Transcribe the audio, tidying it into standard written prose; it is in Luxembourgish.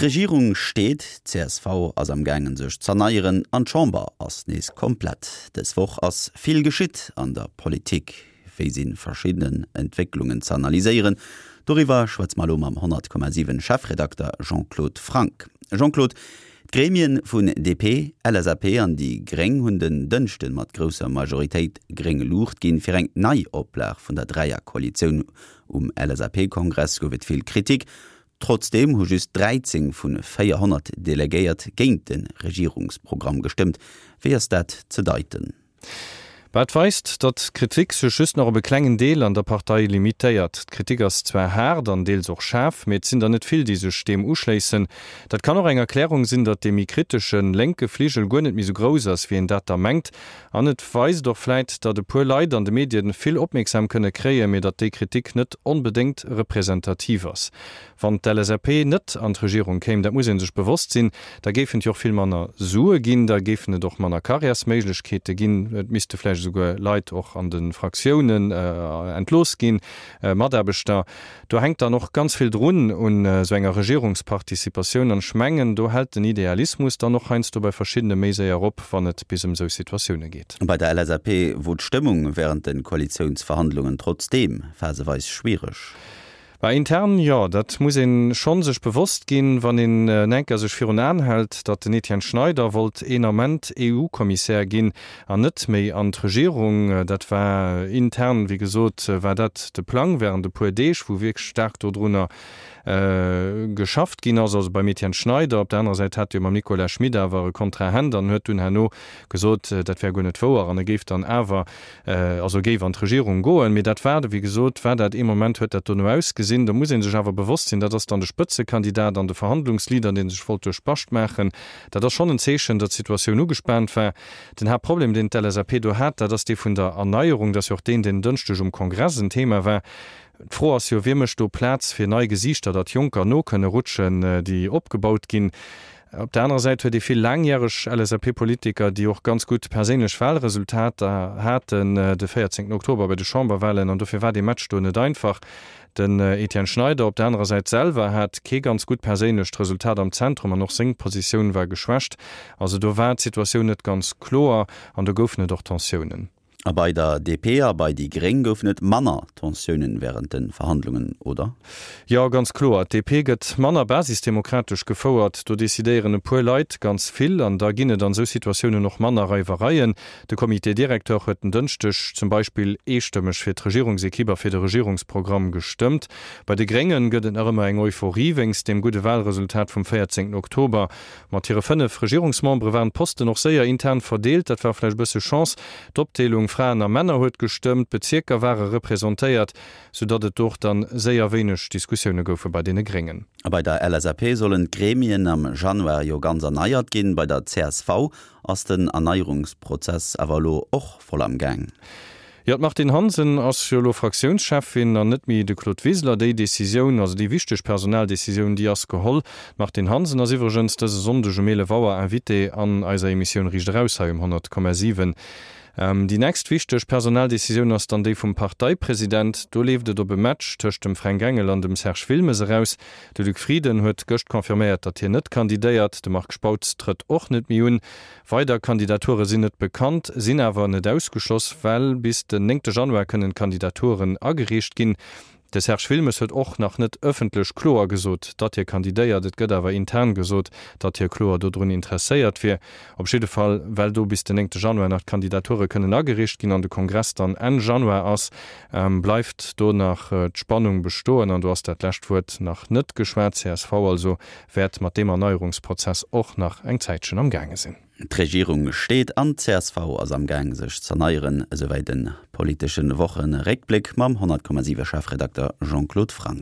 D'Regierung steet, d'CSV ass am gaangen sech z'erneieren an d'Chamber ass nees komplett. Dës Woch ass vill geschitt an der Politik. Wéi si verschidden Entwécklungen z'analyséieren, doriwwer schwätze mer elo mam 100,7 Chefredakter Jean-Claude Franck. Jean-Claude, d'Gremien vun DP, LSAP an déi Gréng hunn den Dënschden mat grousser Majoritéit gréng Luucht ginn fir eng Neioplag vun der Dräierkoalitioun. Um LSAP-Kongress gouf et vill Kritik. Trotzdeem hu just 13 vu 400 Delegéiert géint de Regierungsprogramm gestëmmt. Wéi ass dat ze deiten? Wat weist, datt d'Kritik sech just nach op e klengen Deel an der Partei limitéiert. D'Kritik ass zwar haart an deels och schaarf, mee et sinn der net vill, déi sech deem uschléissen. Dat kann och eng Erklärung sinn, datt dee méi kritesche lénke Fligel guer net méi sou grouss ass, wéi een dat da mengt. An et weist och vläit, datt e puer Leit an de Medien vill Opmierksam kënne kréien, mee datt déi Kritik net onbedéngt representativ ass. Wann d'LSAP net an d'Regierung kéim, dat muss ee sech bewosst sinn, da géifen et jo och vill manner Sue ginn, da géifen et och manner Karriärsméiglechkeete ginn, et misste vläicht esouguer Leit och an de Fraktiounen entlooss ginn, Mataarbechter. Do hänkt dann och ganz vill drun un esou enger Regierungsparticipatioun. An ech mengen, do hält den Idealismus dann och heiansdo bei verschiddene méi séier op, wann et bis ëm esou Situatioune geet. Bei der LSAP wor d'Stëmmung wärend de Koalitiounsverhandlungen trotzdeem phaseweis schwiereg. Bah, intern jo, dat muss een schonn sech bewosst ginn, wann een en enker sech virun Aen hält, datt den Etienne Schneider wollt een Ament EU-Kommissär ginn an net méi an d'Regierung. Dat war intern, wéi gesot, war dat de Plang während e puer Deeg, wou wierklech staark dodrunner geschafft ginn ass, also beim Etienne Schneider. Op der anerer Säit hat e jo mam Nicolas Schmit awer e Kontrahent an huet dunn herno gesot, dat wär guer net wouer an e géif dann awer also géif an d'Regierung goen. Mee dat war, wéi gesot, war dat ee Moment, huet dat dono ausgesinn. Do muss ee sech awer bewosst sinn, dat ass dann de Spëtzekandidat an de Verhandlungsleader, dee sech wollt duerch d'Bascht maachen. Dat ass schonn en Zeechen, datt d'Situatioun ugespaant war. Den Haaptproblem, deen d'LSAP do hat, dat ass dee vun der Erneierung. Dat ass jo och deen, deen en Dënschdeg um Kongress en Thema war. D'Fro ass jo, Wie mécht do Plaz fir nei Gesiichter, datt Jonker no kënne rutschen, déi opgebaut ginn? Op der anerer Säit huet ee vill laangjäreg LSAP-Politiker, déi och ganz gutt perséinlech Wahlresultater haten de 14 Oktober bei de Chamberwahlen, an dofir war dee Match do net einfach. Den Etienne Schneider op der anerer Säit selwer hat kee ganz gutt perséinlecht Resultat am Zentrum an och seng Positioun war geschwächt. Also do war d'Situatioun net ganz kloer an do goufen et och Tensiounen. A bei der DP a bei déi Gréng goufen et manner Tensiounen wärend de Verhandlungen, oder? Jo, ganz kloer. D'DP gëtt manner basisdemokratesch gefouert. Do decidéieren e puer Leit ganz vill an da ginn et an esou Situatiounen och manner Reiwereien. De Comité directeur huet en Dënschdeg zum Beispill eestëmmeg fir d'Regierungsekipp a fir de Regierungsprogramm gestëmmt. Bei de Gréngen gëtt et nach ëmmer eng Euphorie wéinst deem gudde Walresultat vum 14 Oktober. Mat hire 5 Regierungsmembere waren d'Posten och séier intern verdeelt. Dat war vläicht e bësse Chance. D'Opdeelung Fraen a Männer huet gestëmmt, d'Bezierker ware representéiert, sou datt et do och dann séier wéineg Diskussioune goufe bei deene Gréngen. A bei der LSAP sollen d'Gremien am Januar jo ganz erneiert ginn. Bei der csv ass den Erneierungsprozess awer elo och voll am Gaang. Jo, d'Martine Hansen ass jo elo Fraktiounscheffin an net méi de Claude Wiseler. Déi Decisioun, also déi wichteg Personaldecisioun, déi ass geholl. D'Martine Hansen ass iwwregens dëse Sonndeg um 11 Auer Invitée an eiser Emissioun Riicht Eraus hei um 100,7. Déi nächst wichteg Personaldecisioun ass dann déi vum Parteipresident. Do leeft et op e Match tëscht dem Fränk Engel an dem Serge Wilmes eraus. De Luc Frieden huet gëscht confirméiert, datt hien net kandidéiert. De Marc Spautz trëtt och net méi un. Weider Kandidature sinn net bekannt, sinn awer net ausgeschloss, well bis den néngte Januar kënnen d'Kandidaturen agereecht ginn. De Serge Wilmes huet och nach net ëffentlech kloer gesot, datt hie kandidéiert. Et gëtt awer intern gesot, datt hie kloer dodrun interesséiert wier. Op jidde Fall, well do bis den néngte Januar nach d'Kandidature kënnen agereecht ginn an de Kongress dann Enn Januar ass, bleift do nach d'Spannung bestoen an do ass dat lescht Wuert nach net geschwat. Csv also wäert mat deem Erneierungsprozess och nach eng Zäitchen am gaange sinn. D'Regierung steet an d'CSV ass am Gaang sech z'erneieren, esouwäit de politesche Wocheréckbléck mam 100,7 Chefredakter Jean-Claude Franck.